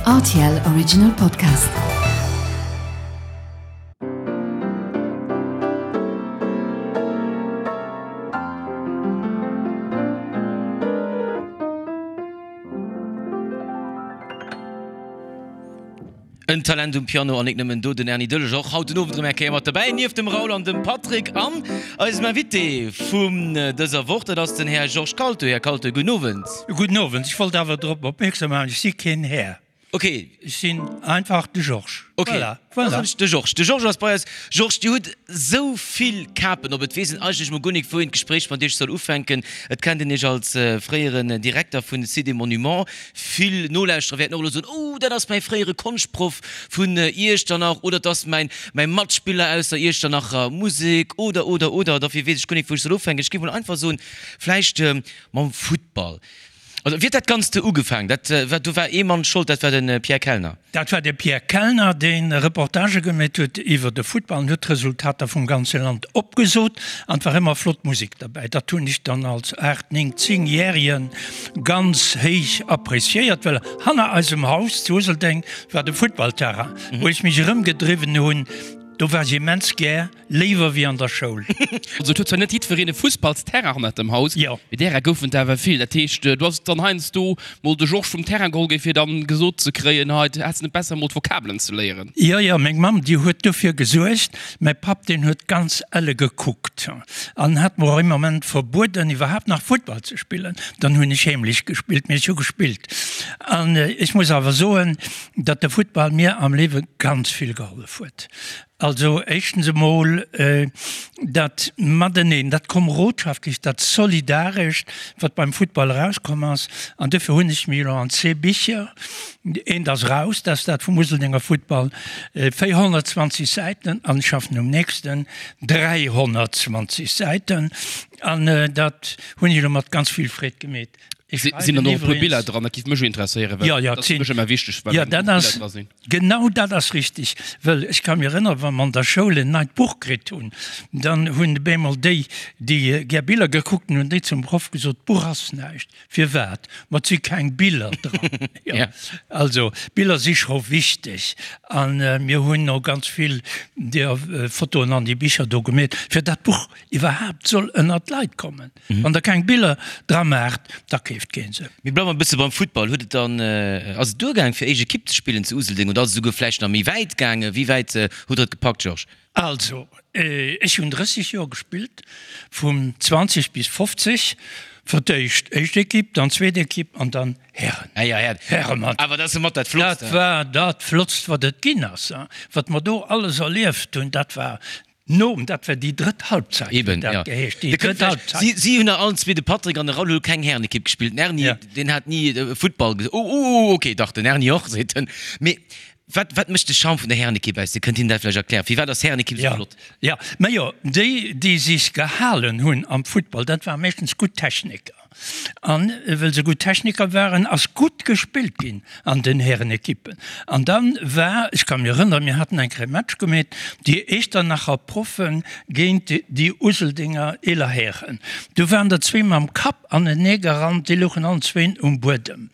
Rtl Original Podcast. En Talent um Piano an nik nëmmen do, den Erny Döllesch och haut den Owend erëm eng Kéier mat derbäi, nieft dem Raoul an dem Patrick an eisem Invité vun dëser Woch, dat ass den Här Georges Kalto. Här Kalto, gudden Owend. Gudden Owend. Ech wollt awer drop opmierksam maachen, ech si keen Här. Ok. Ech sinn einfach de Georges. Ok, Voilà, da voilà. soen ech de Georges. De Georges ass bei eis. Georges, Dir hutt esou vill Kapen op. Et weess een eigentlech mol guer nik, wou een d'Gespréich mat Iech soll ufänken. Et kennt een Iech als fréieren Direkter vun Site et Monuments. Vill Nolauschterer wäerten och elo soen, Oh, dat ass mäi fréiere Konschtproff vun Iechternach oder 't ass mäin, mäi Matspiller aus der Iechternacher Musek oder, oder, oder. Dofir weess ech guer nik, wou ech soll ufänken. Ech géif mol einfach soen, vläicht mam Futtball. Also wéi huet dat Ganzt do ugefaangen? Dat war, do war ee Mann Schold, dat war de Pierre Kellner. Dat war de Pierre Kellner, dee Reportagë gemeet huet iwwer de Futtball an huet d'Resultater vum ganze Land opgesot. An et war ëmmer flott Musek derbäi. Dat hunn ech dann als aacht, néng, zéngjäregen ganz héich appreciéiert, well hanner eisem Haus zu Useldeng war de Futtballterrain, wou ech mech erëmgedriwwen hunn. Do war ech immens gär. Léiwer wéi an der Schoul. Also et huet zwar net jiddwereen e Fussballsterrain hannert dem Haus, Jo. mee därer goufen et awer vill. Dat heescht, du ass dann heiansdo mol de Georges vum Terrain geholl gi fir dann gesot ze kréien, hei häss net besser mol d'Vokabelen ze léieren. Jo, jo, meng Mamm, déi huet dofir gesuergt. Mäi Papp, deen huet ganz elle gekuckt an hat mer och ee Moment verbueden, iwwerhaapt nach Futtball ze spillen. Dann hunn ech heemlech gespillt, mee ech hu gespillt. An ech muss awer soen, datt de Futtball mir am Liewe ganz vill gehollef huet. Also éischtens emol dat Mateneen, dat Komerodschaftlecht, dat Solidarescht, wat beim Futtball erauskomm ass. An duerfir hunn ech mir elo an zwee Bicher, eent ass eraus, dat ass dat vum Useldenger Futtball, 420 Säiten, an ech schaffen um nächsten, 320 Säiten. An dat hunn ech elo mat ganz vill Freed gemeet. Ech Sinn dann och e puer Biller dran? Dat géif mech interesséieren, well Ja, ja, dat ass fir mech ëmmer wichteg, wa ja, dat Biller ass, dra sinn. Genau dat ass richtig, well ech ka mir erënneren, wa mer an der Schoul en neit Buch kritt hunn, dann hunn op eemol déi, déi gär Biller gekuckt hunn, hunn déi zum Proff gesot, d'Buch ass näischt. Firwat? Ma et si keng Biller dran. Ja. Also, Biller si scho wichteg a mir hunn och ganz vill deer Fotoen an déi Bicher do gemeet, fir dat d'Buch iwwerhaapt soll ënnert d'Leit kommen. Wann der keng Biller dra maacht, da keeft keen se. Mir bleiwen e bësse beim Futtball. Huet et dann, ass et duergaang fir éischt Ekipp ze spillen zu Useldeng oder ass et esouguer vläicht nach méi wäit gaangen? Wéi wäit hutt der et gepackt, Georges? Also, ech hunn 30 Joer gespillt, vun 20 bis 50, fir d'éischt éischt Ekipp, dann zweet Ekipp an dann Hären. Ah ja, Hären. Häremannschaft. Awer dat ass jo mat dat Flottst. Dat war dat Flottst, wat et ginn ass. Wat mer do alles erlieft hunn, dat war Nom, dat war déi drëtt Halbzeit, huet dat geheescht, déi drëtt Halbzeit. Si, si hunn allen zwee, de Patrick an de Raoul, hu keng Härenekipp gespillt. Den Erny, deen hat ni Futtball ges-, oh, oh, okay, dach, den Erny och, seet en. Mee wat, wat mécht de Charme vun der Härenekipp aus? Dir kënnt hinnen dat vläicht erklären. Firwat ass d'Härenekipp esou flott? Jo, majo, déi, déi sech gehalen hunn am Futtball, dat ware meeschtens gutt Techniker. An wëll se gutt Techniker waren, ass gutt gespillt ginn an den Härenekippen. An dann war, ech ka mir erënneren, mir haten eng Kéier e Match gemeet, déi Echternacher Proffen géint déi Useldinger eeler Hären. Du waren der zwee mam Kapp anenee gerannt, déi louchen allen zwéin um Buedem.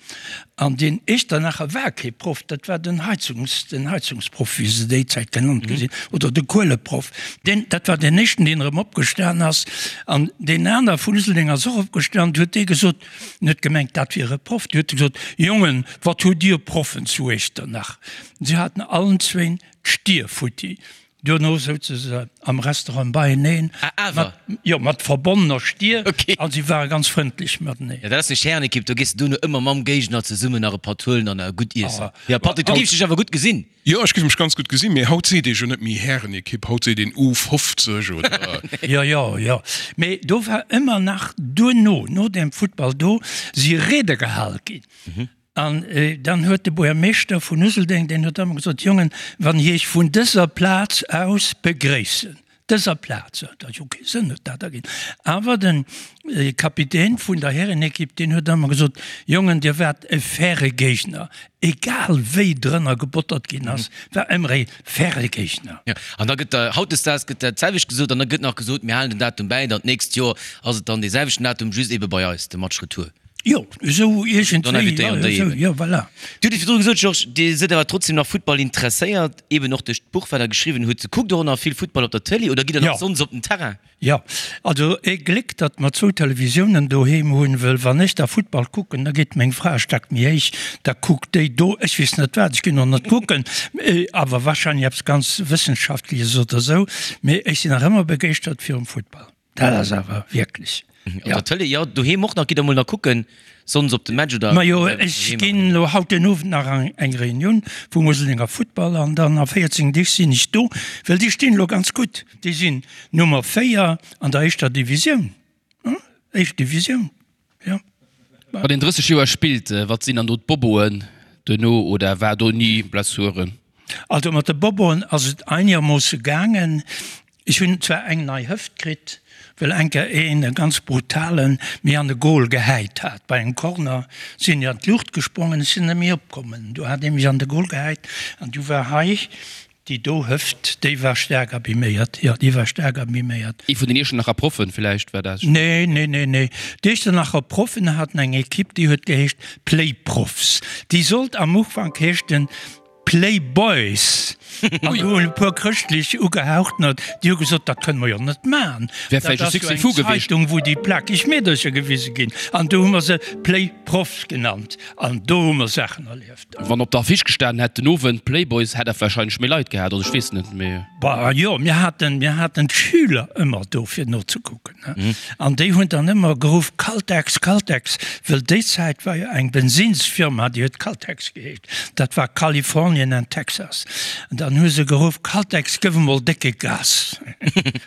An deen Echternacher war kee Proff, dat war den Heizungs, den Heizungsproff, wéi se déi Zäit genannt gi sinn, oder de Kueleproff. Deen, dat war deen éischten, deen erëm opgestan ass. An deen aner vun Useldeng ass och opgestan, du huet dee gesot, en huet gemengt, dat wier e Proff, du huet e gesot, Jongen, wat hutt Dir Proffen zu Echternach? Si haten allen zwéin d'Stier futti. Duerno souze se am Restaurant beieneen, mat, jo, mat verbonnener Stier, a si ware ganz frëndlech mateneen. Jo, dat ass eng Härenekipp, do gees de duerno ëmmer mam Géigner zesummen nach e Patt huelen an gutt iessen. Jo, Patrick, du géifs dech awer gutt gesinn. Jo, ech géif mech ganz gutt gesinn, mee haut seet ee jo net méi Härenekipp, haut seet een U50 oder. Jo, jo, jo, mee do war ëmmer nach duerno, no dem Futtball do, si Riede gehal ginn. An dann huet de Buergermeeschter vun Useldeng, deen huet ëmmer gesot, Jongen, wann ech Iech vun dëser Plaz aus begréissen, dëser Plaz, dat huet jo kee Sënn huet dat erginn, awer de Kapitän vun der Härenekipp, deen huet ëmmer gesot, Jongen, Dir waart e faire Géigner, egal wéi drënner gebottert ginn ass, war ëmmer e faire Géigner. Jo, an da gëtt hautdesdaags gëtt dat selwecht gesot an da gëtt nach gesot, mir halen den Datum bäi, dann d'nächst Joer ass et dann dee selwechten Datum, just ebe bei eis, de Match retour. Jo, esou iergendwéi, jo, esou, jo, voilà. Dir hutt et virdru gesot, Georges, Dir sidd awer trotzdem nach Futtball interesséiert, eben och duerch d'Buch, wat Der geschriwwen hutt. Kuckt Der och nach vill Futtball op der Tëlee oder gitt Der nach sonns op den Terrain? Jo, also ee Gléck, datt mer zwou Televisiounen doheem hunn, wëll wann ech da Futtball kucken, da geet meng Fra e Stack méi héich, da kuckt déi do, ech weess net wat, ech ginn och net kucken, awer wahrscheinlech eppes ganz Wëssenschaftleches oder esou, mee ech sinn nach ëmmer begeeschtert virum Futtball. Dat ass awer wierklech. Op der Tëlee, jo, doheem och nach. Gitt der mol nach kucken, sonns op de Match oder? Majo, ech ginn elo haut den Owend nach an eng Reunioun vum Useldinger Futtball an dann a 14 Deeg sinn ech do, well déi stinn elo ganz gutt. Déi sinn Nummer 4 an der éischter Divisioun, éischt Divisioun, jo. Wann een 30 Joer spillt, wat sinn dann do d'Boboen duerno oder war do ni Blessuren? Also mat de Boboen ass et einegermoosse gaangen. Ech hunn zwar eng nei Hëft kritt, well eng Kéier een, e ganz brutalen, mir an de Goal gehäit hat. Bei engem Corner sinn ech an d'Luucht gesprongen, ech sinn net méi opkommen. Du hat ee mech an de Goal gehäit an du war hei déi do Hëft, déi war staark abiméiert. Jo, déi war staark abiméiert. Ee vun den Iechternacher Proffen villäicht war dat? Nee, nee, nee, nee. D'Iechternacher Proffen haten eng Ekipp, déi huet geheescht Playprofs. Déi sollt am Ufank heeschten Playboys! An do hunn e puer chrëschtlech Ugehauchtener, déi hu gesot, dat kënne mer jo net maachen. Wär vläicht e Dat ass jo Succès eng fou gewiescht. Zeitung, wou déi plakeg Meedercher gewise ginn. An do hu mer se Playprofs genannt. An do hu mer Saachen erlieft. Wann op der Affiche gestanen hätt, den Owend Playboys, hätt dat warscheinlech méi Leit gehat, also ech weess net, mee. Bah jo, mir haten, mir haten d'Schüler ëmmer do fir nozekucken. An déi hunn dann ëmmer geruff, Caltex, Caltex, wëll déi Zäit war jo eng Bensinnsfirma, déi huet Caltex geheescht. Dat war Kalifornien an Texas. An dann hu se geruff, Caltex, gëff emol décke Gas.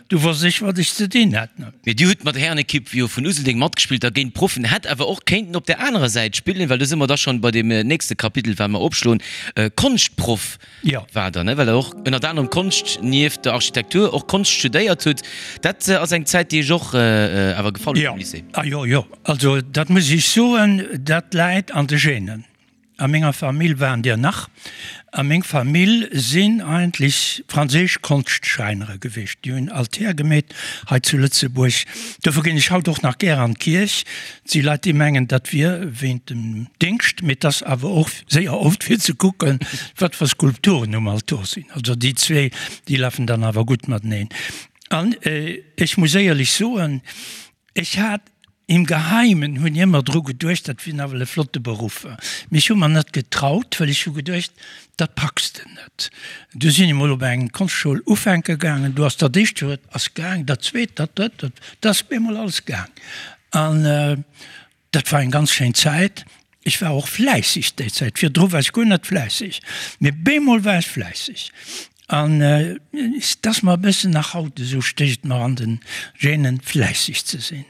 Du wosst ech, wat ech ze dinn hat. Mee Dir hutt mat der Härenekipp jo vun Useldeng matgespillt, da géint d'Proffen. Hätt awer och kéinten op der anerer Säit spillen, well do si mer da schonn bei deem nächste Kapitel, wat mer opschloen, Konschtproff war der, ne? Well der och ënnert anerem Konscht nieft der Architektur och Konscht studéiert hutt. Dat ass eng Zäit, déi Iech och awer gefall huet am Lycée? Jo, jo, jo. Also dat muss ech soen, dat läit an de Genen. A menger Famill waren der nach. A meng Famill sinn eigentlech franséisch Konschtschräinere gewiescht. Déi hunn Altär gemeet hei zu Lëtzebuerg. Dofir ginn ech haut och nach gär an d'Kierch. Et si Leit, déi mengen, dat wier wéint dem Déngscht, mee et ass awer och séier oft fir ze kucken, wat fir Skulpturen um Altor sinn. Also déi zwee, déi lafen dann awer gutt mateneen. An ech muss éierlech soen, Ech hat im Geheimen hunn ech ëmmer dru geduecht, dat wier nawell e flotte Beruff. Mee ech hu mer net getraut, well ech hu geduecht, dat packs de net. Du sinn ech mol op eng Konschtschoul ufänke gaangen, do ass dat éischt Joer ass gaang, dat zweet, dat drëtt, dat, dat ass bemol alles gaang. An Dat war eng ganz schéin Zäit. Ech war och fläisseg déi Zäit. Virdru war ech guer net fläisseg, mee bemol war ech fläisseg. An et ass mer e bëssen nach haut esou, stécht et mer an de Genen, fläisseg ze sinn.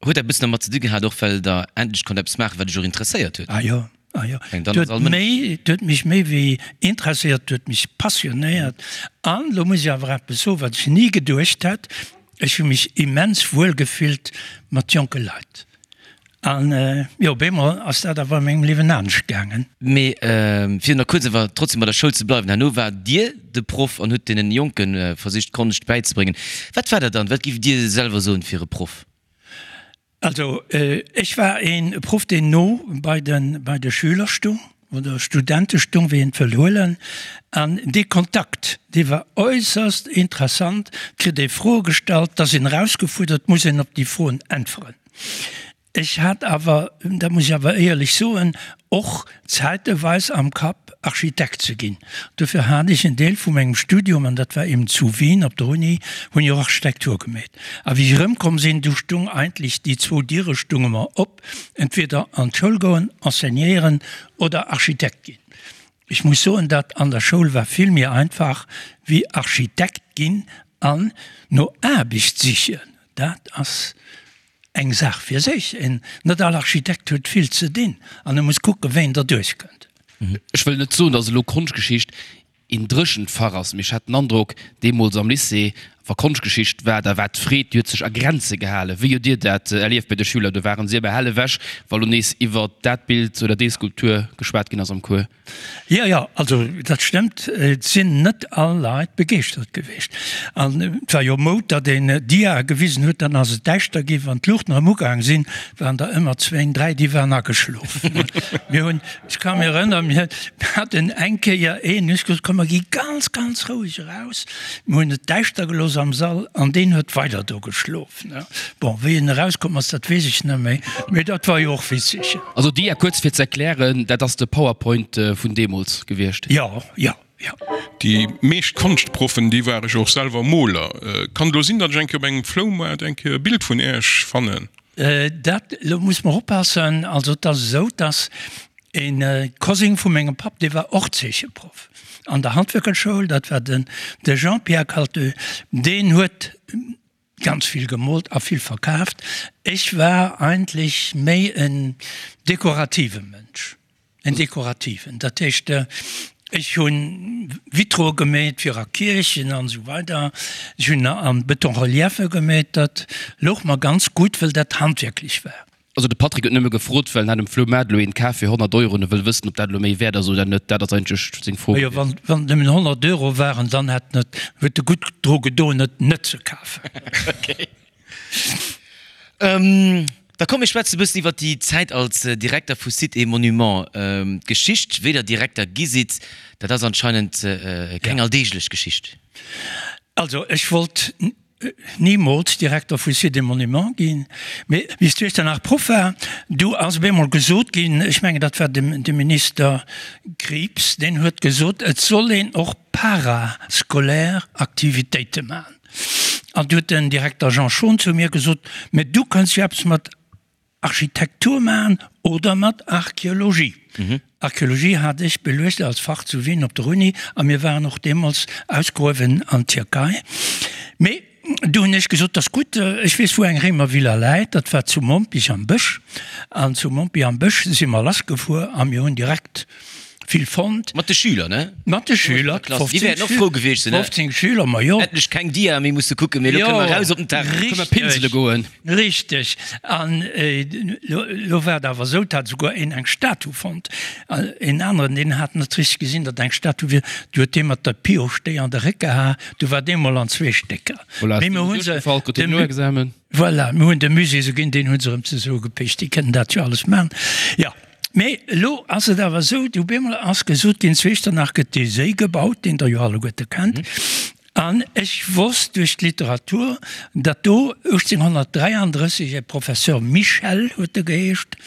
Huet dat e bëssen dermat ze di gehat och, well Der endlech konnt eppes maachen, wat Iech och interesséiert huet? Ah jo, ah jo. Et huet méi, et huet mech méi wéi interesséiert, et huet mech passionéiert. An elo muss ech awer eppes soen, wat ech ni geduecht hätt, Ech hu mech immens wuel gefillt mat jonke Leit. An jo, op eemol ass dat awer a mengem Liewen anescht gaangen. Mee fir nach kuerz awer trotzdem bei der Schoul ze bleiwen, herno waart Dir de Proff an hutt deenen Jonke versicht Konscht bäizebréngen. Wat war dat dann? Wat giff Dir selwer soen fir e Proff? Also ech war een Proff deen no bei de bei de Schüler stung oder Studente stung, wéi een et wëll huelen. An dee Kontakt, dee war äusserst interessant. Et kritt ee Froe gestallt, da sinn erausgefuerdert, muss een op déi Froen äntweren. Ech hat awer, dat muss ech awer éierlech soen, och zäiteweis am Kapp, Architekt ze ginn. Dofir hat ech en Deel vu mengem Studium, an dat war eben zu Wien op der Uni, hunn ech och Architektur gemeet. A wéi ech erëmkomm sinn, du stung eigentlech déi zwou Diere stunge mer op, entweder an d'Schoul goen, enseignéieren oder Architekt ginn. Ech muss soen, dat an der Schoul war vill méi einfach wéi Architekt ginn an no Aarbecht sichen. Dat ass Eng Saach fir sech, en net all Architekt huet vill ze dinn an e muss kucken, wéi en derduerch kënnt. Ech wëll net soen, datt elo Konschtgeschicht een dréchent Fach ass, mee ech hat den Androck, deemools am Lycée, Wa Konschtgeschicht war, da war d'Freed, déi huet sech a Grenze gehalen. Wéi hutt Dir dat erlieft bei de Schüler? Do waren si awer hell ewech, wa lo nees iwwer dat Bild oder déi Skulptur geschwat ginn ass am Cours. Jo, jo, also dat stëmmt. Et sinn net all Leit begeeschtert gewiescht. An et war jo Moud, datt een Diae gewisen huet, dann ass et däischter ginn. Wann d'Luuchten erëm ugaang sinn, waren der ëmmer zwéin, dräi, déi waren ageschlof. Mir hunn, ech ka mir erënneren, mir haten eng Kéier een, hu ech gesot, komm mer gi ganz, ganz roueg eraus. Mir hunn et däischter gelooss am Sall an deen huet weider do geschlof. Bon, wéi en erauskomm ass, dat weess ech net méi, mee dat war jo och witzeg. Also Dia, kuerz fir ze erklären, dat ass de Powerpoint vun deemools gewiescht? Jo, jo, jo. Déi meescht Konschtproffen, déi ware jo och selwer Moler. Kann et elo sinn, datt ech eng Kéier op engem Floumaart eng Kéier e Bild vun Äech fannen? Dat, elo muss mer oppassen, also et ass esou, datt e Cousin vu mengem Papp, dee war och Zeecheproff an der Handwierkerschoul, dat war den de Jean-Pierre Calteux, deen huet ganz vill gemoolt a vill verkaaft. Ech war eigentlech méi en dekorative Mënsch. En dekorativen, dat heescht, ech hu Vitroe gemeet fir a Kierchen an esou weider. Ech hunn a Betonreliefe gemeet, dat louch mer ganz gutt, wëll dat handwierklech war. Also de Patrick huet nëmme gefrot, well en hat um Floumaart elo een kaf fir 100 Euro an e wëll wëssen, ob dat elo méi wäert ass oder net. Dat ass eigentlech seng Fro Majo, gewiescht. wann et nëmmen 100 Euro waren, dann hätt en et, huet e gutt dru gedoen, et net ze kafen. Okay. Da komm mir schwätzen e bëssen iwwer déi Zäit als Direkter vu Sites et Monuments. D'Geschicht, wéi Der Direkter gi sidd, dat ass anscheinend keng alldeeglech Geschicht. Also ech wollt nimools Direkter vu Sites et Monuments ginn, mee wéi ech zu Iechternach Proff war, du ass op eemol gesot ginn, ech mengen dat war de Minister Krieps, deen huet gesot, et soll een och parascolaire Aktivitéite maachen. An du huet den Direkter Jean Schon zu mir gesot, Mä du kënns jo eppes mat Architektur maachen oder mat Archeologie. Archeologie hat ech beluecht als Fach zu Wien op der Uni a mir waren och deemools ausgruewen an Tierkei. Mee du hunn ech gesot, 't ass gutt, ech weess wou eng Réimervilla läit, dat war zu Mompich am Bësch. An zu Mompich am Bësch si mer lassgefuer a mir hunn direkt vill fonnt. Mat de Schüler, ne? Mat de Schüler, 15 Déi wäerten och frou gewiescht sinn, ne? 15 Schüler, ma jo. Endlech keng Dia méi musse kucken, mee elo kënne mer raus op den Terrain. Kënne mer pinsele goen. Richteg. An elo war et awer esou, et hat esouguer een eng Statu fonnt. Een aneren, deen hat net richteg gesinn, datt eng Statu wier, du huet dee mat der Pioche déi an de Réck geha, du war dee mol an zwee Stécker. Voilà, Mee ass mir deen hu se duerchgefall, krut deen dem. Noexamen. Voilà, mir hunn dem Musée se ginn, deen hu se erëm zesummegepecht. Déi kënnen dat jo alles maachen. Jo. Mee elo ass et awer esou, du bemol ass gesot ginn, zu Echternach gëtt dee Séi gebaut, deen Der jo alleguerte kennt. An ech wosst duerch d'Literatur, datt do 1833 e Professeur Michel, huet e geheescht,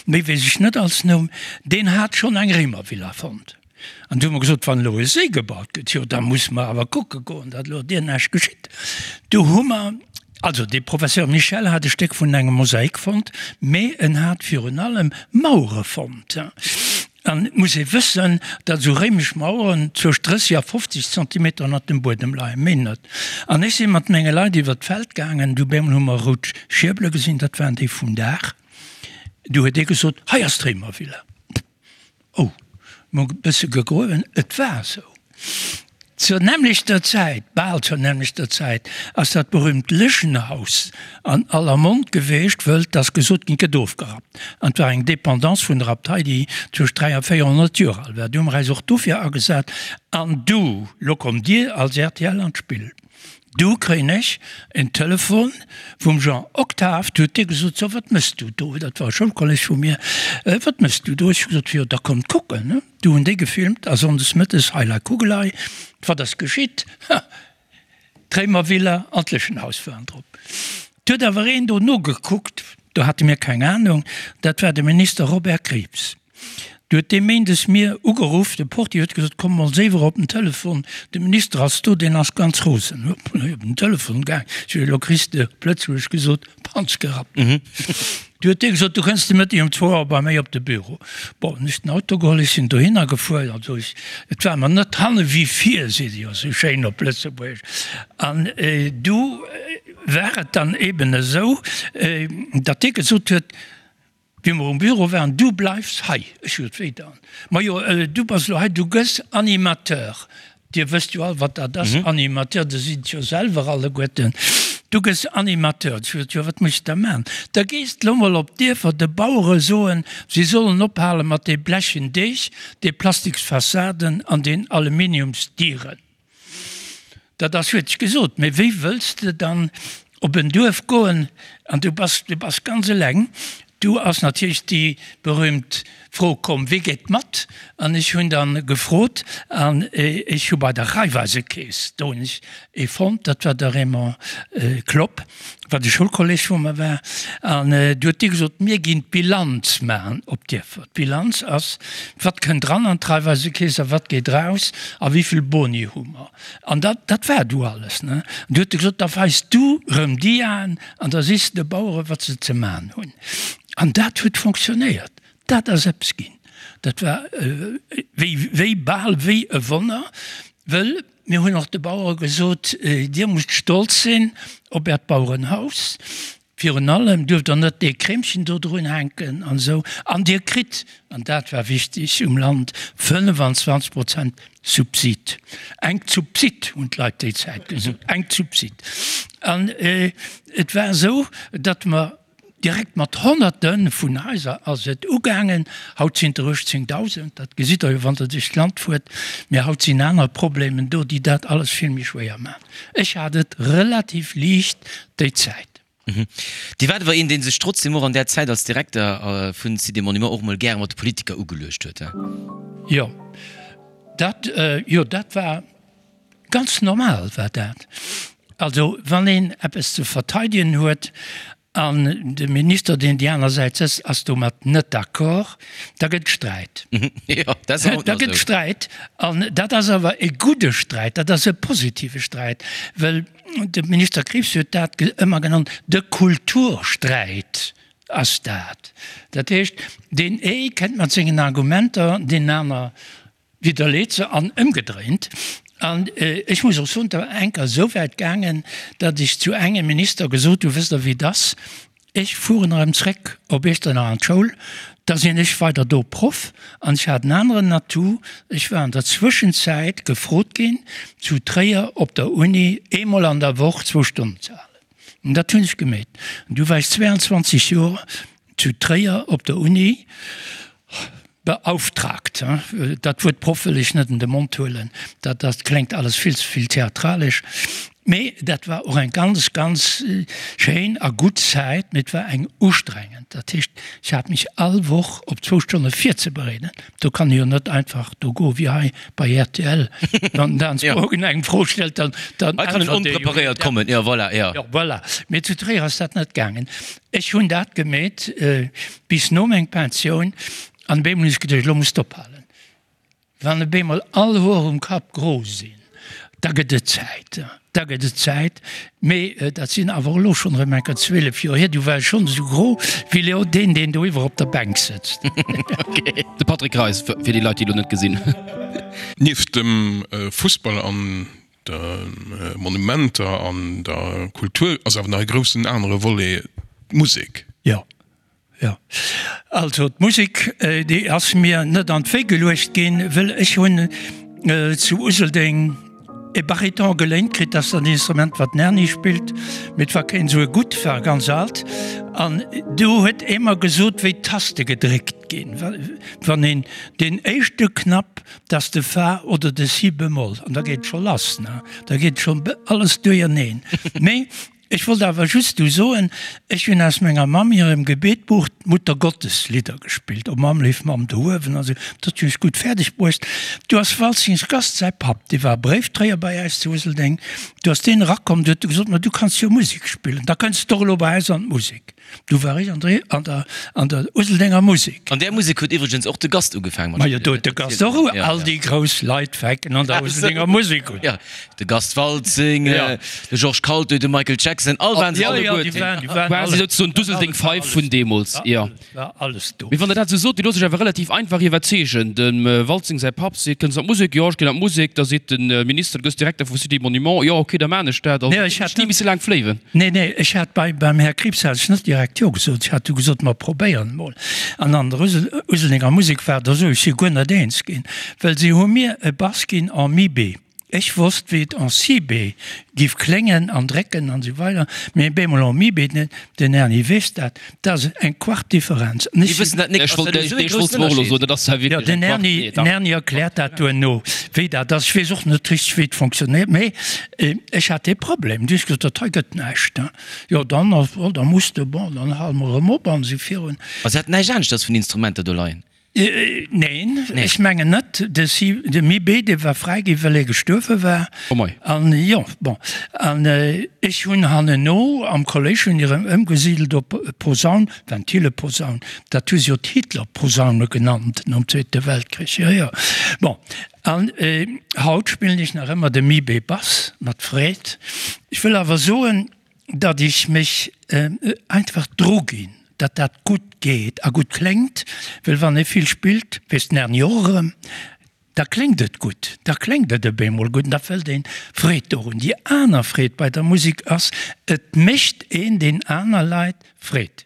méi weess ech net als Numm, deen hat schonn eng Réimervilla fonnt. An du hu mer gesot, wann elo e Séi gebaut gëtt, jo da musse mer awer kucke goen, datt elo deer näischt geschitt. Du hu mer, also dee Professeur Michel hat e Stéck vun engem Mosaik fonnt, mee en hat virun allem Mauere fonnt. An et muss ee wëssen, datt esou réimesch Maueren zwëscht 30 a 50 Zentimeter ënnert dem Buedem leien, méi net. An ech si mat menge Leit iwwer d'Feld gaangen, du bemol hu mer rout Schierbele gesinn, dat waren déi vum Daach. Du huet ee gesot, hei ass d'Réimervilla. Oh, mol e bësse gegruewen, et war esou. Zur nämmlechter Zäit, bal zur nämmlechter Zäit, ass dat berühmt Lëschenhaus an aller Mond geweecht, wëll 't ass gesot ginn, 't gëtt ofgerappt. An 't war eng Dépendance vun der Abtei, déi zwëscht 3 a 400 Joer al war. Du hu mer äis och dofir agesat. An du, lo kommt Dir als rtl an d'Spill. Du kréien ech en Telefon vum Jean Octave, du huet dee gesot, so wat mëss du do? Dat war e Schoulkolleg vu mir, wat mëss du do? Ech hu gesot, jo da kommt kucken, ne? Du hunn déi gefilmt a sonndes mëttes, heilei Kugelei, wat ass geschitt? Ha! D'Réimervilla an d'Lëschenhaus waren drop. Et huet awer een do nogekuckt, do hate mir keng Anung, dat war de Minister Robert Krieps. Du huet dee méindes mir ugeruff, de Portier huet gesot, komm mol séiwer op den Telefon, de Minister ass do, deen ass ganz rosen. Ech op den Telefon gaang, ech hu elo kriss de op Lëtzebuergesch gesot, Panz gerappt. Du huet dee gesot, du kënns de Mëtteg um zwou Auer bei méi op de Büro. Bon, hunn ech den Auto geholl, ech sinn dohinner gefuer, also ech, et war mer net hanne wéi vir, seet ee jo esou schéin op Lëtzebuergesch. An du war et dann eben esou, datt dee gesot huet, Wéi mer um Büro waren, Du bleifs hei! Ech sot, Wéi dann? Majo, du bass elo hei, du gëss Animateur. Dir wësst jo all, wat dat ass, Animateur, Dir sidd et jo selwer alleguerten. Du gëss Animateur. Ech sot, Jo, wat muss ech da maachen? Da gees de lo mol op d'Dierfer de Bauere soen, si sollen ophale mat dee blechen Deeg, de Plastiksfassaden an den Aluminiumsdieren. Dat ass, huet ech gesot, mee wéi wëlls de dann op en Duerf goen an du bass, du bass ganz eleng. Du ass natierlech déi berühmt Fro komm, Wie geet mat? An ech hunn dann gefrot an ech hu bei der Raiffeisekeess, do hunn ech ee fonnt, dat war de Raymond Klopp, wat e Schoulkolleg vu mer war, an du huet dee gesot, mir ginn d'Bilanz maachen op d'Dierfer. D'Bilanz ass, wat kënnt dran an d'Raiffeisekeess a wat geet raus a wéi vill Boni hu mer. An dat, dat war du alles, ne? An du huet e gesot, da weis du rëm Diaen an da sees de de Bauere wat se ze man hunn. An dat huet fonctionnéiert. Dat ass eppes ginn. Dat war wéi, wéi bal wéi e Wonner, wëll mir hunn och de Bauere gesot, Dir musst stolz sinn op Äert Bauerenhaus. Virun allem duerft Der net dee Kreemchen do drun hänken an esou. An Dir kritt, an dat war wichtig um Land, 25 Prozent Subsid. Eng Zubsid, hunn d'Leit déi Zäit gesot, eng Zubsid. An et war esou, datt mer direkt mat Honnerte vun Haiser ass et ugaangen. Haut sinn et der 18.000, dat gesitt Der jo, wann Der duerch d'Land fuert. Mee haut sinn aner Problemen do, déi dat alles vill méi schwéier maachen. Ech hat et relativ liicht déi Zäit. Dir waart awer een, dee sech trotzdem och an där Zäit als Direkter vun Cité Monument och mol gäre mat de Politiker ugeluecht huet, he? Jo, dat, jo, dat war ganz normal war dat. Also wann een eppes ze verteidegen huet An de Minister, deen déi aner Säit sëtzt, ass domat net d'accord, da gëtt et Sträit. Da gëtt et Sträit. An dat ass awer e gudde Sträit, dat ass e positive Sträit, well de Minister Krieps huet dat ëmmer genannt, de Kultursträit ass dat. Dat heescht, deen ee kënnt mat sengen Argumenter, deen aner Widderleet se an ëmgedréint. An ech muss och soen, et war eng Kéier esou wäit gaangen, datt ech zu engem Minister gesot hunn, Wësst Der wéi et ass, ech fueren erëm zréck op Iechternach an d'Schoul, da sinn ech weider do Proff. An ech hat en aneren Atout, ech war an der Zwëschenzäit gefrot ginn, zu Tréier op der Uni eemol an der Woch zwou Stonnen ze halen. An dat hunn ech gemeet. An du war ech 22 Joer zu Tréier op der Uni. Beauftragt, dat Wuert Proff wëll ech net an de Mond huelen, dat dat kléngt alles vill ze vill theatralesch, mee dat war och eng ganz, ganz schéin a gutt Zäit, mee et war eng ustrengend. Dat heescht, ech hat mech all Woch op zwou Stonne virzebereeden. Do kann ee jo net einfach do goe wéi hei bei rtl, wann den Dan Spogen eng Fro stellt, dann dann Hei kann en äntwert ee jo. onpreparéiert kommen, jo voilà, jo. Jo voilà, mee zu Tréier ass dat net gaangen. Ech hunn dat gemeet bis no meng Pensioun an op eemol hunn ech geduecht, elo muss d'ophalen. Wann op eemol all Hoer um Kapp gro sinn, da gëtt et Zäit, da gëtt et Zäit. Mee dat sinn awer elo schonn erëm enker 12 Joer hier, du war ech schonn esou gro wéi elo deen, deen doiwwer op der Bänk sëtzt. De Patrick Reis, fir déi Leit, déi elo net gesinn. Nieft dem Fussball an De Monumenter an der Kultur ass awer nach e groussen anere Volet, d'Musek. Jo, jo. Also d'Musek, déi ass mir net an d'Wéi geluecht ginn, wëll ech hunn zu Useldeng e Bariton geléint kritt, dat ass dat Instrument, wat den Erny spillt, mee et war keen esou e gutt, war ganz alt. An do huet ee mer gesot, wéi d'Taste gedréckt ginn, wann een deen éischte Knapp T'ass de Fa oder de Si bemoll an da geet et scho lass, ne? Da geet scho alles duerjerneen. Mee ech wollt awer just du soen, ech hunn aus menger Mamm hirem Gebetbuch d'Muttergottes-Lidder gespillt, O Mamm, léif Mamm do uewen an esou. Dat hunn ech gutt fäerdeg bruecht. Du ass Waltzings Gast säi Papp, dee war Bréifdréier bei äis zu Useldeng, du ass deen erakomm, du huet e gesot, Ma du kanns jo Musek spillen, da kënns de och elo bei äis an d'Musek. Du war ech an der, an der, an der Useldenger Musek. An där Musek huet iwwregens och de Gast ugefaangen mat Majo, do huet de Gast och u, all déi grouss Leit fänken an der Useldenger Musek un. Jo, de Gast Waltzing, de Georges Kaltö, de Michael Jackson, all waren se alleguerten. Jo, jo, déi waren, déi waren alle. Quasi souzesoen d'Useldeng Five vun deemools, jo. War alles do. Mee wann Der dat esou sot, Dir loosst Iech awer relativ einfach iwwerzeegen. Dem Waltzing säi Papp seet, Kënns an d'Musek? Jo, ech ginn an d'Musek. Da seet de Minister, Du gëss Direkter vum Cité Monument. Jo, ok, da maan ech dat. Also, ech hätt ni misse laang fléiwen. Nee, nee, ech hat bei, beim Här Krieps hat ech net direkt Jo gesot. Ech hat du gesot, mer probéieren emol. An an der Useldenger Musek war et esou, ech si guer net eens ginn, well si hu mir e Bass ginn en Mi B. Ech wosst, wéi et en Si B giff kléngen an drécken an esou weider, mee B-Moll en Mi B, den Erny weess dat, dat ass eng Quart Differenz. An ech wëssen dat nik, ass dat elo esou ee groussen Ënnerscheed? Jo, den Erny, den Erny erkläert dat duerno, wéi dat ass. Ech weess och net richteg, wéi et fonctionnéiert, mee ech hat dee Problem. Du hues gesot, dat hei gëtt näischt. Jo, dann, da muss de, bon, dann hale mer erëm op an esou virun. Also hat näischt aneschters vun Instrumenter do leien? Neen, ech mengen net. De Si, de Mi-B, dee war fräi ginn, well e gestuerwe war. Oh mei. An jo, bon. An ech hunn hanneno am Kolléisch hunn erëm ëmgesidelt op Posaun, Ventileposaun. Dat hu se jo d'Hitlerposaune genannt nom Zweete Weltkrich. Jo, jo. Bon. An haut spillen ech nach ëmmer de Mi-B-Bass mat Freed. Ech wëll awer soen, datt ech mech einfach druginn, datt dat gutt geet a gutt kléngt, well wann ee vill spillt, weess den Erny och erëm, da kléngt et gutt, da kléngt et op eemol gutt an da fëllt een Freed dorun. Déi aner Freed bei der Musek ass, et mécht een den aner Leit Freed.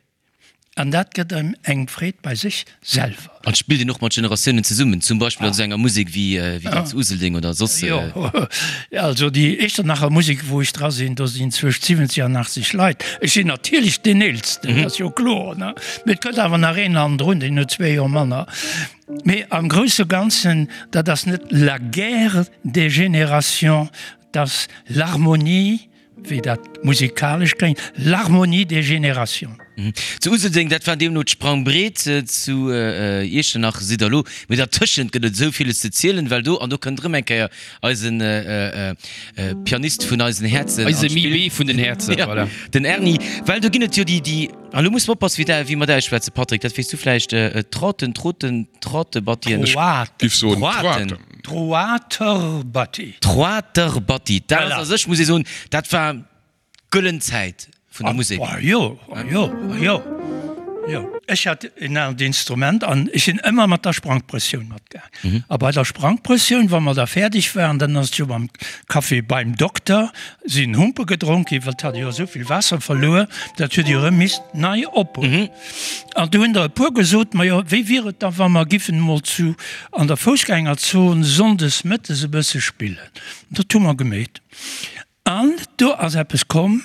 An dat gëtt engem eng Freed bei sech selwer. An spillt een och mat Generatiounen zesummen, zum Beispill an esou enger Musek wéi déi zu Useldeng oder soss? Jo, also déi Echternacher Musek, wou ech dra sinn, do sinn zwëscht 70 an 80 Leit. Ech sinn natierlech deen Eelsten, dat ass jo kloer, ne? Mee et kënnt awer nach een hannendrun, deen huet zwee Joer manner. Mee am grousse Ganzen, dat ass net la guerre des générations, dat ass l'harmonie Wéi dat musikalesch kléngt, l'harmonie des générations. Zu Useldeng, dat war deemno d'Sprangbreet, zu Iechternach sidd der elo, mee dertëschent gëtt et esou villes ze zielen, well do, an do kënnt erëm eng Kéier eisen Pianist vun eisen Häerzen an Eise d'Spill, Mimi vun den Häerzen, voilà. Den Erny, well do ginn et jo déi, déi, an elo muss mer oppassen, wéi der, wéi mer dat ausschwätzen, Patrick, dat weess du vläicht, Trotten, Troten, Trottebattien, Troaten. Giff soen Troaten. Troaten. Troaterbatti. Troaterbatti, dat ass a sech, muss ee soen, dat war d'gëllen Zäit vun der Musek. Ah jo, ah jo, ah jo, jo. Ech hat en anert Instrument an ech sinn ëmmer mat der Sprangprëssioun matgaang. A bei der Sprangprëssioun, wa mer da fäerdeg waren, dann ass et jo mam Café beim Dokter, sinn Humpe gedronk ginn, well et hat jo esou vill Waasser verluer, dat huet jo erëm misst nei ophuelen. An du hunn der e puer gesot, Majo, wéi wier et da, wa mer giffen emol zu an der Foussgängerzon sonndes mëttes e bësse spillen? Dat hu mer gemeet. An do ass eppes komm,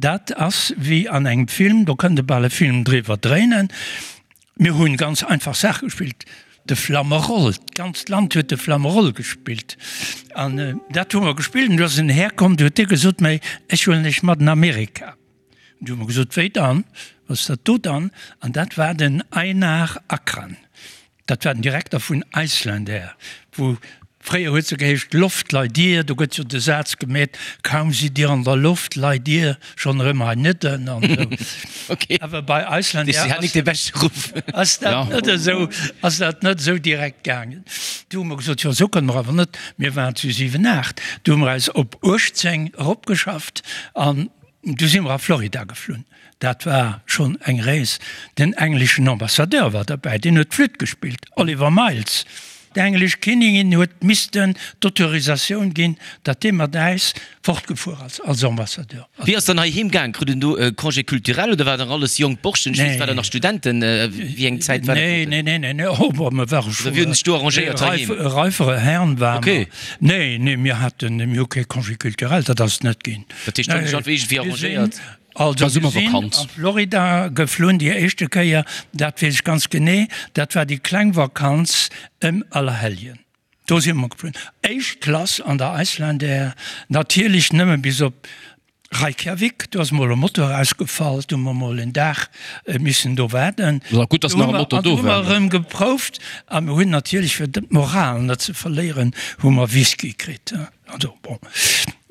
dat ass wéi an engem Film, do kënnt e bal e Film driwwer dréinen. Mir hunn ganz einfach Saache gespillt, de Flammeroll, d'ganzt Land huet de Flammeroll gespillt. An dat hu mer gespillt. An du ass en Här komm, du huet dee gesot, Mä ech huelen iech mat an Amerika. Du hu mer gesot, Wéi dann? Wat ass dat do dann? An dat war den Einar Akran. Dat war den Direkter vun Icelandair, wou fréier huet se geheescht Loftleidir, do gëtt jo de Saz gemeet, kaum sidd Dir an der Loft, leit Dir schonn erëm hei nëdden an esou. Okay. Awer bei Icelandair Si hat nik de beschte Ruff. ass dat net esou, ass dat net esou direkt gaangen. Du hu mer gesot, jo esou kënne mer awer net, mir waren zu 7, 8, du hu mer eis op 18 eropgeschafft an Du si mer a Florida geflunn. Dat war schonn eng Rees. Den engleschen Ambassadeur war derbäi, deen huet d'Flütt gespillt, Oliver Miles. D'englesch Kinnigin huet missten d'Autorisatioun ginn, datt dee mat äis fortgefuer ass als Ambassadeur. Wéi ass dann hei heem gaang? Krut en do e Congé culturel oder war nach alles jonk Borschten? Ech weess, war der nach Studenten? Wéi eng Zäit war dat? Nee, nee, nee, nee, nee, oh, mer ware scho Oder wéi hunn sech do arrangéiert heiheem? reifere Herrn ware mer. Okay. Nee, nee, mir haten, mir hu kee Congé culturel, dat ass net ginn. Dat heescht, do hunn sech einfach iergendwéi arrangéiert. Also mir sinn a Florida geflunn déi éischte Kéier, dat weess ech ganz genee, dat war déi kleng Vakanz ëm Allerhelljen. Do si mer geflunn, éischt Klass an der Icelandair, natierlech nëmme bis op Reykjavik. Do ass mol e Motor ausgefall, do hu mer mol en Dag missen do waarden. Gutt, dass nach e Motor do war. An du hu mer erëm geprouft a mir hunn natierlech, fir d'Moral net ze verléieren, hu mer Whisky kritt. Also bon,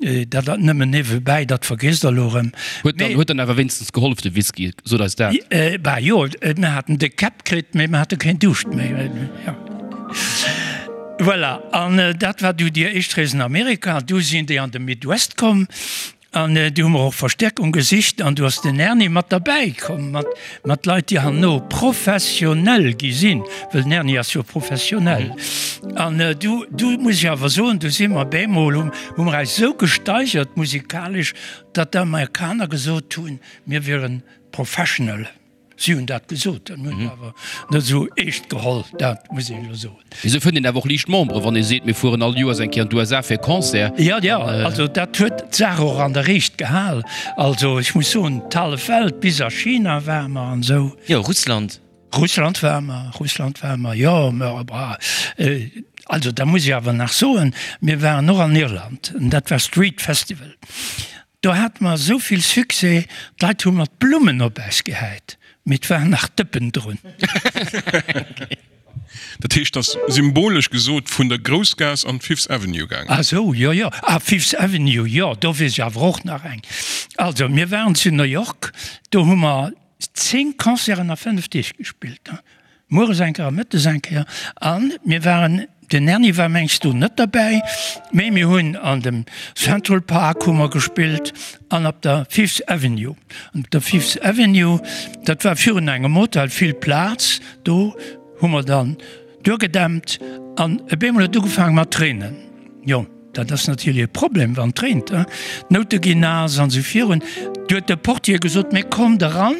dat dat nëmmen niewebäi, dat vergiesst Der elo erëm. Huet dann, huet dann awer wéinstens gehollef, de Whisky, sot eis dat. Bah jo, mir haten déck Käpp kritt, mee mir hate keen Duuscht méi. Jo. Voilà, an dat war du déi éischt Rees an Amerika. Du sinn déi an de Midwest komm. An du hu mer och Verstärkung gesicht an du ass den Erny mat derbäi komm, mat, mat Leit, déi herno professionell gi sinn, well den Erny ass jo professionell. An du, du muss ech awer soen, du si mer bemol, hu, hu mer eis esou gesteigert musikalesch, datt d'Amerikaner gesot hunn, mir wieren professional. Si hunn dat gesot, dat hunn ech awer net esou eescht geholl, dat muss een elo soen. Mee esou fënnt een awer och liicht Memberen, wann ee seet, mir fueren all Joers eng Kéier an d'USA fir e Concert. Jo, jo, also dat huet d'Saach och an der Riicht gehal. Also ech muss soen, d'hallef Welt, bis a China ware mer an esou. Jo, Russland. Russland ware mer, Russland ware mer, jo, mä bah, also da muss ech awer nach soen, mir waren och an Irland, an dat war Street Festival. Do hate mer esou vill Succès, d'Leit hu mat Blummen op äis gehäit, mee et waren nach Dëppen drun. Dat heescht, ass symbolesch gesot vun der Groussgaass an d'Fifth Avenue gaangen. Ah sou, jo, jo. Ah, Fifth Avenue, jo, do weess ech awer och nach eng. Also, mir waren zu New York, do hu mer 10 Concerten a 5 Deeg gespillt. Mueres eng Kéier a mëttes eng Kéier. A mir waren, den Erny war mengs do net derbäi, mee mir hunn an dem Central Park hu mer gespillt an op der Fifth Avenue. An op der Fifth Avenue, dat war virun engem Hotel, vill Plaz, do hu mer dann duergedämpt an op eemol huet et ugefaange mat reenen. Jo, dat ass natierlech e Problem, wann et reent, d'Noute ginn naass an esou virun. Du huet de Portier gesot, Mee kommt eran.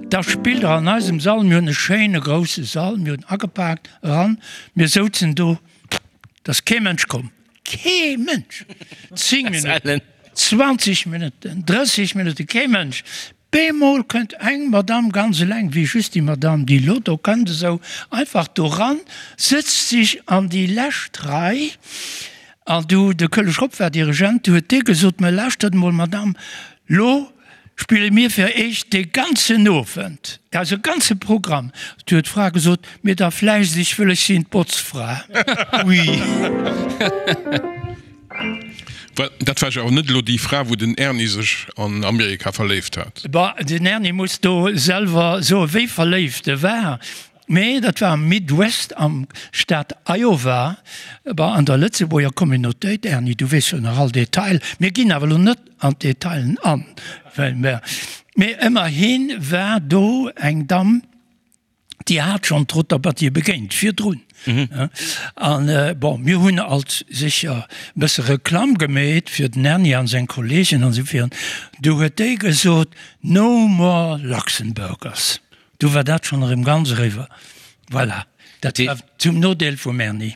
Da spillt der an eisem Sall, mir hunn e schéine grousse Sall, mir hunn agepaakt, eran, mir souzen do, et ass kee Mënsch komm, kee Mënsch! 10 Minutten, 20 Minutten, 30 Minutten, kee Mënsch! Bemol kënnt eng Madamm ganz eleng, wéi just déi Madamm, déi elo do kënnt, esou einfach do ran, sëtzt sech an déi lescht Rei, an du, de Kölle Schropp war Dirigent, du huet dee gesot, Mä lauschtert emol, Madamm, lo Spille mir fir Iech de ganzen Owend eise ganze Programm. Du huet d'Fra gesot, Mir da vläicht, ech wëll, ech sinn d'Botzfra. Ui. Dat war jo awer net elo déi Fra, wou den Erny sech an Amerika verléift hat. Bah, den Erny muss do selwer soe wéi verléift e war. Mee dat war am Midwest, am Staat Iowa, bah, an der Lëtzebuerger Communautéit. Erny, du weess jo nach all Detail. Mir ginn awer elo net an d'Detailen an, well mer, mee ëmmerhi war do eng Damm, déi hat schonn d'Rotter-Battier begéint virdrun. An, bon, mir hunn alt sécher e bësse Reklamm gemeet fir den Erny an seng Kollegen an esou virun. Du huet déi gesot, No more Luxemburgers. Du war dat schonn erëm ganz eriwwer. Voilà, dat war zum Nodeel vum Erny.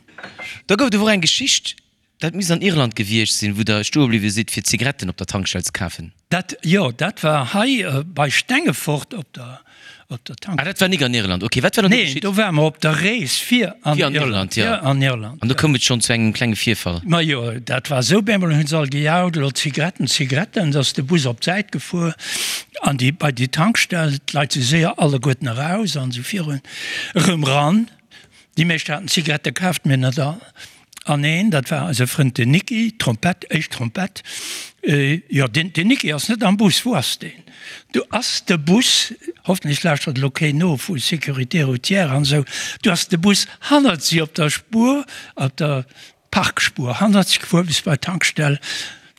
Da gouf et awer och eng Geschicht, dat misst an Irland gewiescht sinn, wou Der stoe bliwwe sidd, fir Zigaretten op der Tankstell ze kafen. Dat, jo, dat war hei bei Stengefort op der, op der Tankstell. Ah, dat war nik an Irland. Ok, wat war dann do Nee, geschitt? do ware mer op der Rees fir an Fir an Irland, Irland, jo. fir an Irland, An do jo. koum et schonn zu engem klenge Virfall. Majo, dat war esou, bemol hunn se all gejaut, elo Zigaretten, Zigaretten, da ass de Bus op d'Säit gefuer an déi, bei déi Tankstell, d'Leit si séier alleguerten eraus an esou virun, erëm ran. Déi meescht haten Zigarette kaaft, mee net all. An een, dat war eise Frënd den Niki, Trompett, éischt Trompett, jo, deen, den Niki ass net am Bus, wou ass deen? Du ass de Bus, hoffentlech lauschtert elo keen no vu Sécurité routière an esou, du ass de Bus hannert si op der Spuer, op der Parkspuer hannert si gefuer bis bei d'Tankstell.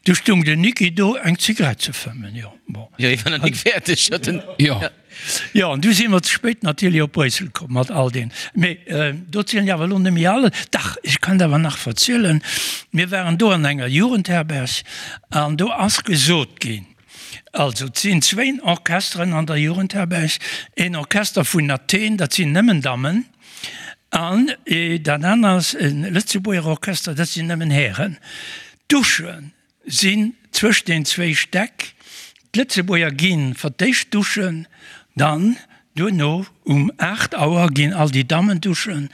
Du stung den Niki do eng Zigarett ze fëmmen, jo, bon. Jo, hie war nach nik fäerdeg, huet en. Jo. Jo, an du si mer ze spéit natierlech op Bréissel komm mat all deen. Mee do zielen ech awer elo net méi alles. Dach, ech kann et awer nach verzielen. Mir waren do an enger Jugendherberg an do ass gesot ginn, also et sinn zwéin Orchesteren an der Jugendherberg, een Orchester vun Athen, dat sinn nëmmen Dammen, an dat aner ass e Lëtzebuerger Orchester, dat sinn nëmmen Hären. D'Duschen sinn zwëscht den zwéi Stäck. D'Lëtzebuerger gi fir d'éischt duschen, dann duerno um 8 Auer ginn all déi Dammen duschen.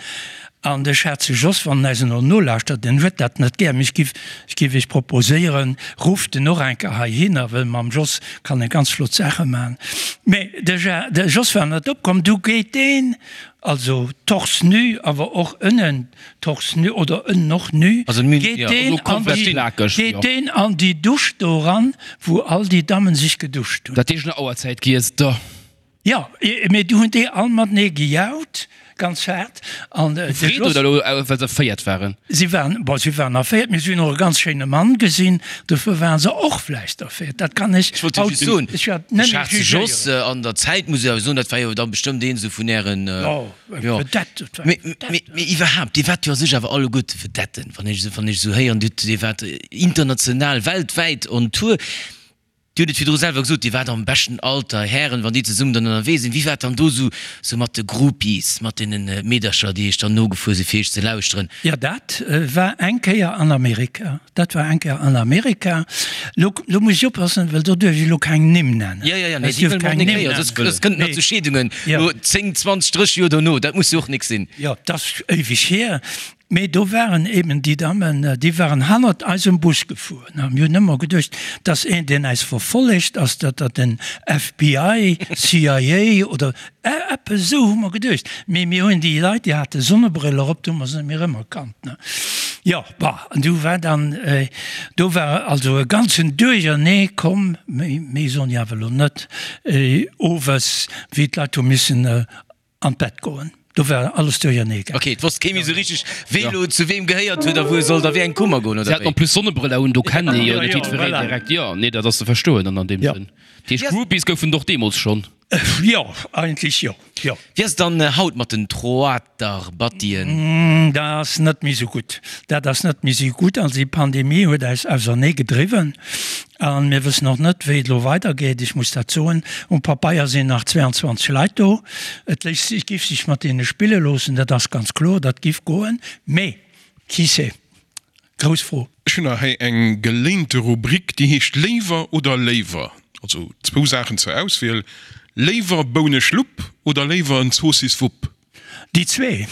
An de Schaarze Jos, wann en eis elo nolauschtert, en huet dat net gär, mee ech giff, ech giff iech proposéieren, rufft en och eng Kéier heihinner, well mam Jos kann e ganz flott Saache man. Mee de Ja, de Jos war net opkomm, du geet deen, also torse nu, awer och ënnen, Torse nu oder ënnen och nu, Also nu, geet ja, deen also an komplett déi, plakeg, geet jo. deen an déi Dusch do eran, wou all déi Dammen sech geduscht hunn. Dat heescht no Auerzäit giess der. Jo, mee du hunn déi all matenee gejaut, ganz haart, an de Freed Jos. oder elo well se erféiert waren? Si waren, bon, si waren erféiert, mee si hunn och e ganz schéine Mann gesinn, dofir waren se och vläicht erféiert, dat kann ech Ech wollt jo haut just soen, ech wäert de net méi Schaarze Jos jugéieren. an der Zäit, muss ech awer soen, dat war jo da bestëmmt een esou vun ären, Jo. Jo. Vedette, et war Mee, eng Vedette. mee, mee iwwerhaapt, Dir waart jo a sech awer alleguerte Vedetten, wann ech esou, wann ech esou héieren, Dir, Dir waart international, weltwäit on Tour. Dir hutt et virdru selwer gesot, Dir waart am beschten Alter, Hären, wann déi zesummen dann ënnerwee sinn. Wéi war et dann do esou sou mat de Groupies, mat deene Meedercher, déi Iech dann nogefuer sinn, fir Iech ze lauschteren? Jo, dat war eng Kéier an Amerika. Dat war eng Kéier an Amerika. Lo, lo muss ech oppassen, well do duerf ech elo keng Nimm nennen. Jo, jo, jo, nee, déi wëlle mer och nik héieren, soss, soss kënnt et nach zu Scheedungen, lo 10, 20, 30 Joer dono. Dat muss jo och nik sinn. Jo, 't ass éiweg hier. Mee do waren eben déi Dammen, déi waren hannert eisem Bus gefuer. A mir hunn ëmmer geduecht, 't ass een, deen äis verfollegt, ass dat dat den FBI, CIA oder eppes esou hu mer geduecht. Mee mir hunn déi Leit, déi hate Sonnebriller op, do hu mer se net méi erëmerkannt, ne. Jo, bah, an du war dann, do war also e ganzen Duerchernee komm, méi, méi soen ech awer elo net, owes, wéi d'Leit hu missen An d'Bett goen. Do war alles duerchernee gaangen. Ok, et wosst kee méi sou richteg, wee lo zu weem gehéiert huet a wou e sollt a wéi eng Kummer goen, oder wéi? Si haten en plus Sonnebrëller un, do kennt ee jo net jiddwereen direkt. Jo, nee, dat ass ze verstoen dann an deem Sënn. Dat heescht, Groupies goufen et och deemools schonn? Jo, eigentlech jo, jo. Wéi ass et dann haut mat den Troaterbattien? Dat ass net méi sou gutt. Dat ass net méi sou gutt. Also déi Pandemie huet eis ausernee gedriwwen. A mir wëssen och net, wéi et elo weidergeet. Ech muss dat soen, um Papeier sinn nach 22 Leit do. Et léisst sech, giff sech mat deene spille loossen, dat ass ganz kloer, dat giff goen. Mee qui sait? Grouss Fro. Ech hunn nach hei eng geléinte Rubrik, déi heescht Léiwer oder léiwer. Also zwou Saachen zur Auswiel, Léiwer Bouneschlupp oder léiwer en Zoossiswupp? Déi zwee.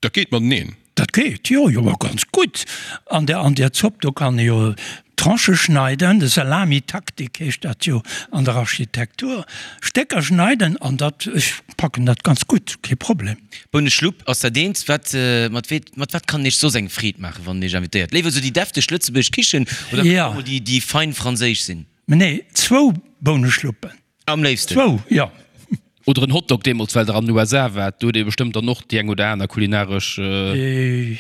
Dat geet mateneen. Dat geet, jo, jo, ma ganz gutt. An der, an der Zopp, do kann ee jo Tranchë schneiden, de Salamitaktik heescht dat jo an der Architektur, Stécker schneiden an dat, ech packen dat ganz gutt, kee Problem. Bouneschlupp ass dat eent. Wat, mat wee, mat wat kann een iech soss eng Freed maachen, wann een iech invitéiert? Léiwer esou déi defteg lëtzebuergesch Kichen oder kann och mol déi, déi fein franséisch sinn? Nee, zwou Bouneschluppen. Am léifsten. Zwou, jo. Oder en Hotdog deemools, well der an den USA waart. Do huet ee bestëmmt dann och déi eng oder aner kulinaresch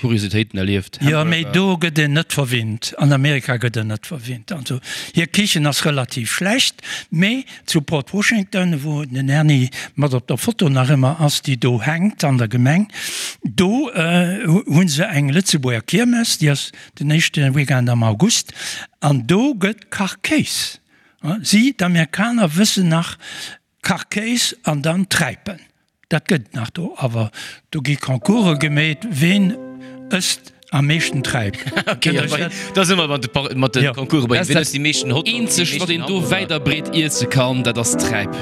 Kuriositéiten erlieft. Jo, mee do gëtt een net verwinnt. An Amerika gëtt een net verwinnt. Also hir Kichen ass relativ schlecht, mee zu Port Washington, wou den Erny mat op der Foto nach ëmmer ass, déi do hänkt an der Gemeng, do hu se eng Lëtzebuerger Kiermes, déi ass den éischte Weekend am August, an do gëtt Kachkéis Si, d'Amerikaner, wëssen nach Kachkéis an dann Träipen. Dat gëtt et nach do, awer do gi Concourse gemeet, ween ësst am meeschten Träip. Da si mer mat de Concourse bei ween ësst déi meeschten Hotdogs. Dat eenzegt, wat een do wäit a breet iesse kann, dat ass Träip.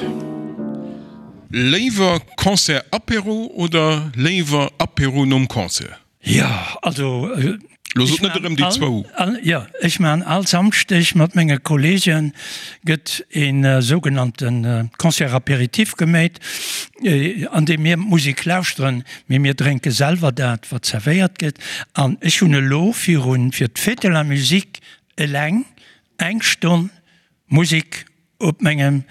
Léiwer Concert-Apéro oder léiwer Apéro nom Concert? Jo, also Lo sot net erëm déi zwou. Jo, ech maachen all Samschdeg mat menge Kollege gëtt e sougenannte Concert apéritif geméit, an deem mir d'Musek lauschteren, mee mir drénke selwer dat, wat zerwéiert gëtt. An ech hunn elo virun, fir d'Fête de la Musique eleng eng Stonn Musek op mengem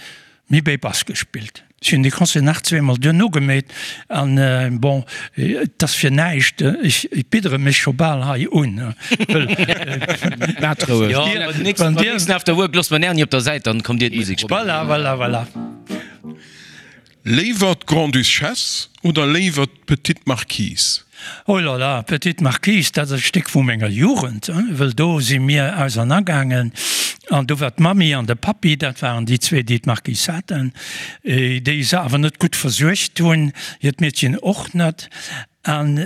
Mibay Bass gespillt. Ech hunn dee Concert nach zweemol duerno gemeet an bon, et ass fir näischt, ech biddere mech scho bal hei un, wëll Maat roueg. Jo, beim nächsten After Work loosse mer den Erny op der Säit, dann kommt dir d'Musek spillen. Voilà, voilà, voilà. Léiwer d'Grande-Duchesse oder léiwer d'Petite Marquise? Oh là là, Petite Marquise, dat ass e Stéck vu menger Jugend, wëll do si mir ausernergaangen an do war d'Mammi an de Pappi, dat waren déi zwee, déi d'Marquise haten, déi se awer net gutt versuergt hunn, hiert Meedchen och net. An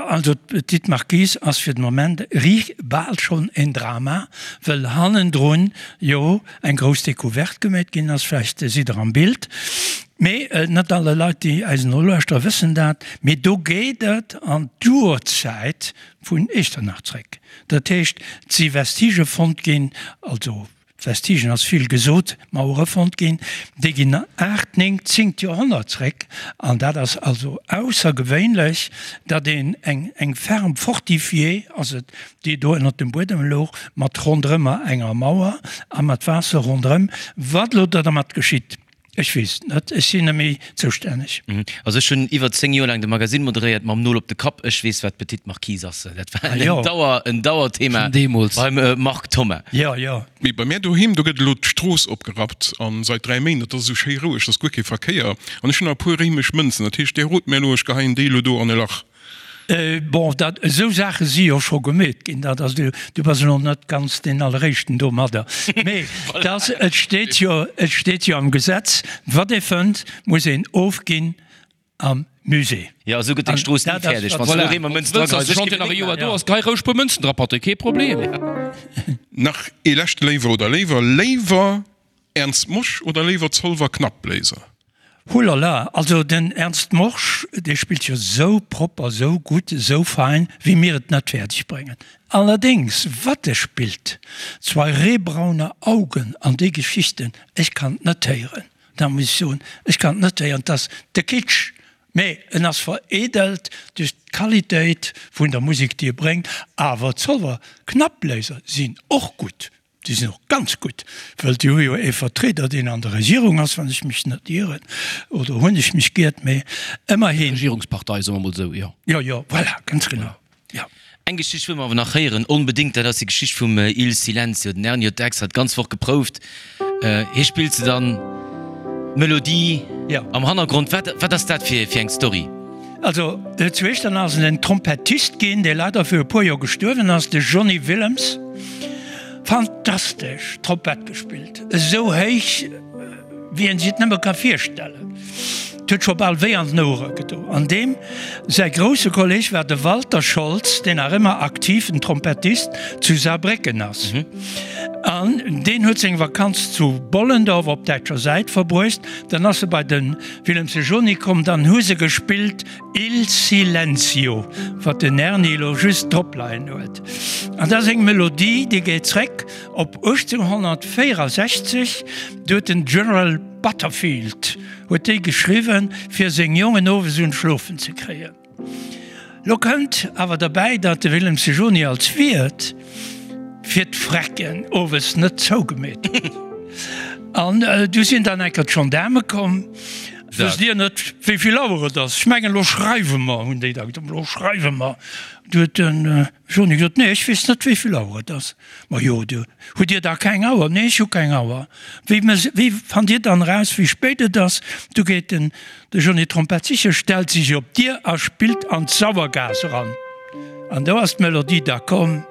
also d'Petite Marquise ass fir de Moment riicht bal schonn en Drama, wëll hannendrun jo eng grouss Decouverte gemeet ginn ass. Vläicht sidd Der am Bild, mee net alle Leit, déi eis nolauschteren, wëssen dat. Mee do geet et an d'Urzäit vun Echternach zréck. Dat heescht, et si Vestigë fonnt ginn, also Vestigen ass vill gesot, Mauere fonnt ginn, déi ginn aacht, néng, zéngt Joerhonnert zréck. An dat ass also aussergewéinlech, datt een eng eng Ferme fortifiée ass et, déi do ënnert dem Buedem louch, mat ronderëmmer enger Mauer a mat Waasser ronderëm. Wat elo do dermat geschitt, Ech weess et net, ech sinn net méi zoustänneg. Also ech hunn iwwer 10 Joer laang de Magasinn moderéiert mam Nol op de Kapp. Ech weess wat d'Petite Marquise ass. Dat war en Dauer, en Dauerthema beim Marc Thoma. Jo, jo. Mee bei mär doheem, do gëtt elo d'Strooss opgerappt an seit 3 Méint, et ass esou schéi roueg, et ass guer kee Verkéier an ech hunn nach e puer réimesch Mënzen. Dat heescht, där rot mär elo, ech geheien déi elo do an e Lach. Bon, dat, esou Saache si jo scho gemeet ginn, dat ass, du bass elo net ganz deen Alleréischten domadder. Mee dass, et steet jo, et steet jo am Gesetz, wat ee fënnt, muss een ofginn am Musée. Jo, esou gëtt deng Strooss ni fäerdeg, wann s du elo eemol Mënzen dra geheis. Wann nach e Joer do ass, gehei roueg puer Mënzen dra, Patrick, kee Problem. Nach ee leschte Léiwer oder Léiwer, Léiwer Ernst Mosch oder léiwer Zolwer Knappbléiser? Hulala, also den Ernst Morsch, dee spillt jo sou propper, sou gutt, sou fein, wéi mir et net fäerdeg bréngen. Allerdéngs, wat e spillt, Zwei rehbraune Augen an déi Geschichten, ech kann et net héieren, da muss ech soen, ech kann et net héieren, 't ass de Kitsch, mee en ass vereedelt duerch d'Qualitéit vun der Musek, déi e bréngt. Awer d'Zolwer Knappbléiser sinn och gutt, Déi sinn och ganz gutt, well déi hu jo ee Vertrieder, deen an der Regierung ass, wann ech mech net ieren, oder hunn ech mech giert, mee ëmmerhin. Regierungspartei, soe mer emol esou, jo. Jo, jo, voilà, ganz genau, jo. Eng Geschicht wëlle mer awer nach héieren, onbedéngt, dat ass déi Geschicht vum Il Silenzio. Den Erny huet extra d'ganz Woch geprouft. Hie spillt se dann, d'Melodie am Hannergrond. Wat, wat ass dat fir eng Story? Also zu Echternach ass en Trompettist ginn, dee leider viru e puer Joer gestuerwen ass, de Johnny Willems. Fantastesch Trompett gespillt, esou héich wéi een sech et nëmme ka virstellen. Et huet scho bal wéi an den Ouere gedo. An deem säi grousse Kolleg war de Walter Scholz, deen nach ëmmer aktiven Trompettist zu Saarbrécken ass. An deen huet seng Vakanz zu Bollendorf op däitscher Säit verbruecht. Dann ass e bei de Willems de Joni komm, dann hu se gespillt Il Silenzio, wat den Erny elo just drop leien huet. An dat ass eng Melodie, déi geet zréck op 1864, do huet den General Butterfield huet déi geschriwwen, fir seng Jongen owes un d'Schlofen ze kréien. Lo kënnt awer derbäi, datt de Willem Sejoni als Wiert fir d'Frecken owes net zougemeet huet. An du sinn dann enker d'Gendaarme komm. Wësst Dir net, wéi vill Auer et ass? Ech mengen, elo schreiwe mer, hunn déi da gesot, elo schreiwe mer. Du huet de Joni gesot, Nee, ech weess net, wéi vill Auer et ass. Majo, du, hutt Dir da keng Auer? Nee, ech hu keng Auer. Wéi, wéi fannt Dir dann eraus, wéi spéit et ass? Du geet den. De Johnny Trompett siche stellt sech op d'Dier a spillt an d'Sauergaass eran. An do ass d'Melodie da komm.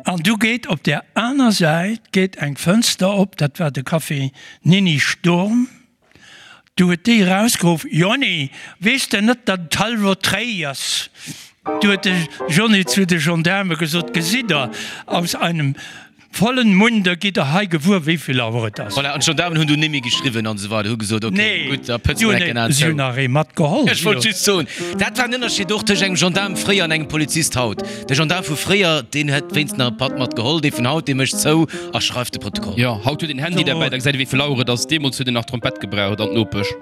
An du geet op där aner Säit geet eng Fënster op, dat war de Café Nini Sturm. Du huet déi erausgeruff, Jonny, weess de net, datt et hallwer dréi ass? Du huet de Johnny zu de Gendaarme gesot, Gesitt Der, aus einem vollen Munde gitt Der hei gewuer, wéi vill Auer et ass. Voilà, an d'Gendaarmen hunn du nimmi geschriwwen an esou weider, hu gesot, ok, gutt, da pëtze mer enk en An zou. Si hunn nach ee matgeholl. Ech wollt just soen, dat war en Ënnerscheed och tëscht engem Gendaarm fréier an engem Polizist haut. De Gendaarm vu fréier, deen hätt wéinst nach e Patt mat geholl, dee vun haut, dee mécht zou a schreift de Protokoll. Jo, haut huet een Handy derbäi, da gesäit ee wéi vill Auer et ass. Deemools huet een nach Trompett gebraucht an d'Nopesch.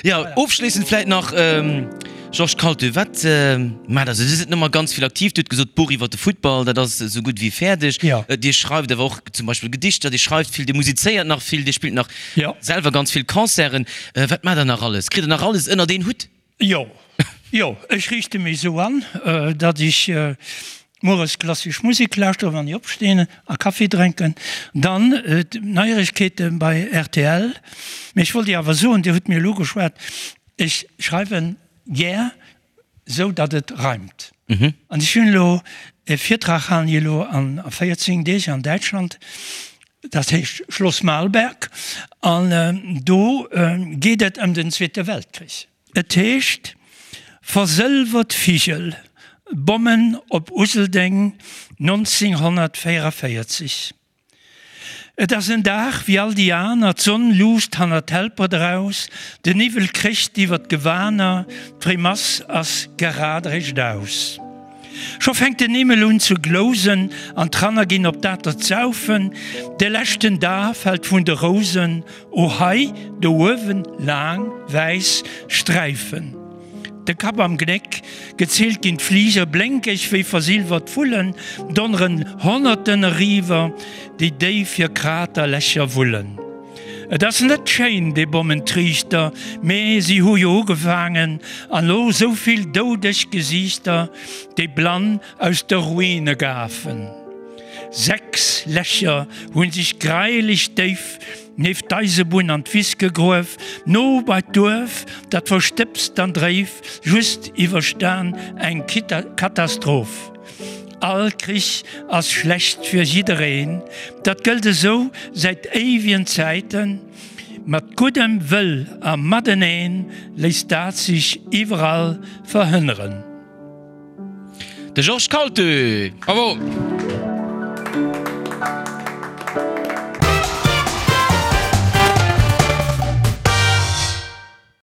Jo, ofschléissend vläit nach, Georges Kaltö, wat maacht der sou? Dir sidd net ganz vill aktiv. Dir hutt gesot, d'Buch iwwer de Futtball, dat ass esou gutt wéi fäerdeg. Dir schreift awer och zum Beispill Gedichter, Dir schreift vill, Dir musizéiert nach vill, Dir spillt nach selwer ganz vill Concerten. Wat maacht der nach alles? Kritt der nach alles ënnert een Hutt? Jo, jo, ech riichte mech esou an, datt ech mueres klassesch Musek lauschtere wann ech opstinn a Kaffi drénken. Dann d'Neieregkeete bei rtl. Mee ech wollt Iech awer soen, Dir hutt mir elo geschwat, ech schreiwe gär esou, datt et reimt. An ech hunn elo e Virtrag, halen ech elo a 14 Deeg an Däitschland, dat heescht Schloss Malberg, an do geet et ëm den Zweete Weltkrich. Et heescht Versëlwert Vigel, Bommen op Useldeng 1944. Et ass en Dag wéi all déi aner, d'Sonn luusst hannert d'Helpert eraus, den Niwwel krécht iwwer d'Gewaner, d'Fréimass ass gerad eréischt aus. Scho fänkt den Himmel un ze glousen an d'Ranner ginn op d'Atert saufen, de leschten Da fält vun de Rousen, o hei do uewen laang wäiss Sträifen. De Kapp am Gnéck, gezielt ginn d'Fliger, blénkeg wéi versilwert Vullen, donneren Honnerten eriwwer, déi déif hir Kraterlächer wullen. Et ass net schéin, dee Bommentriichter, mee si hu jo ugefaangen, an lo sou vill doudeg Gesiichter, déi blann aus de Ruine gafen. 6 Lächer hu sech greileg déif. Nieft d'Eisebunn an d'Wiss gegruef, no bei d'Duerf, dat verstëbst an dréif, just iwwerstan eng Katastroph. All Krich ass schlecht fir jiddereen, dat gëllt esou säit éiwien Zäiten. Mat guddem Wëll a mateneen léisst dat sech iwwerall verhënneren. De Georges Kaltö! Bravo!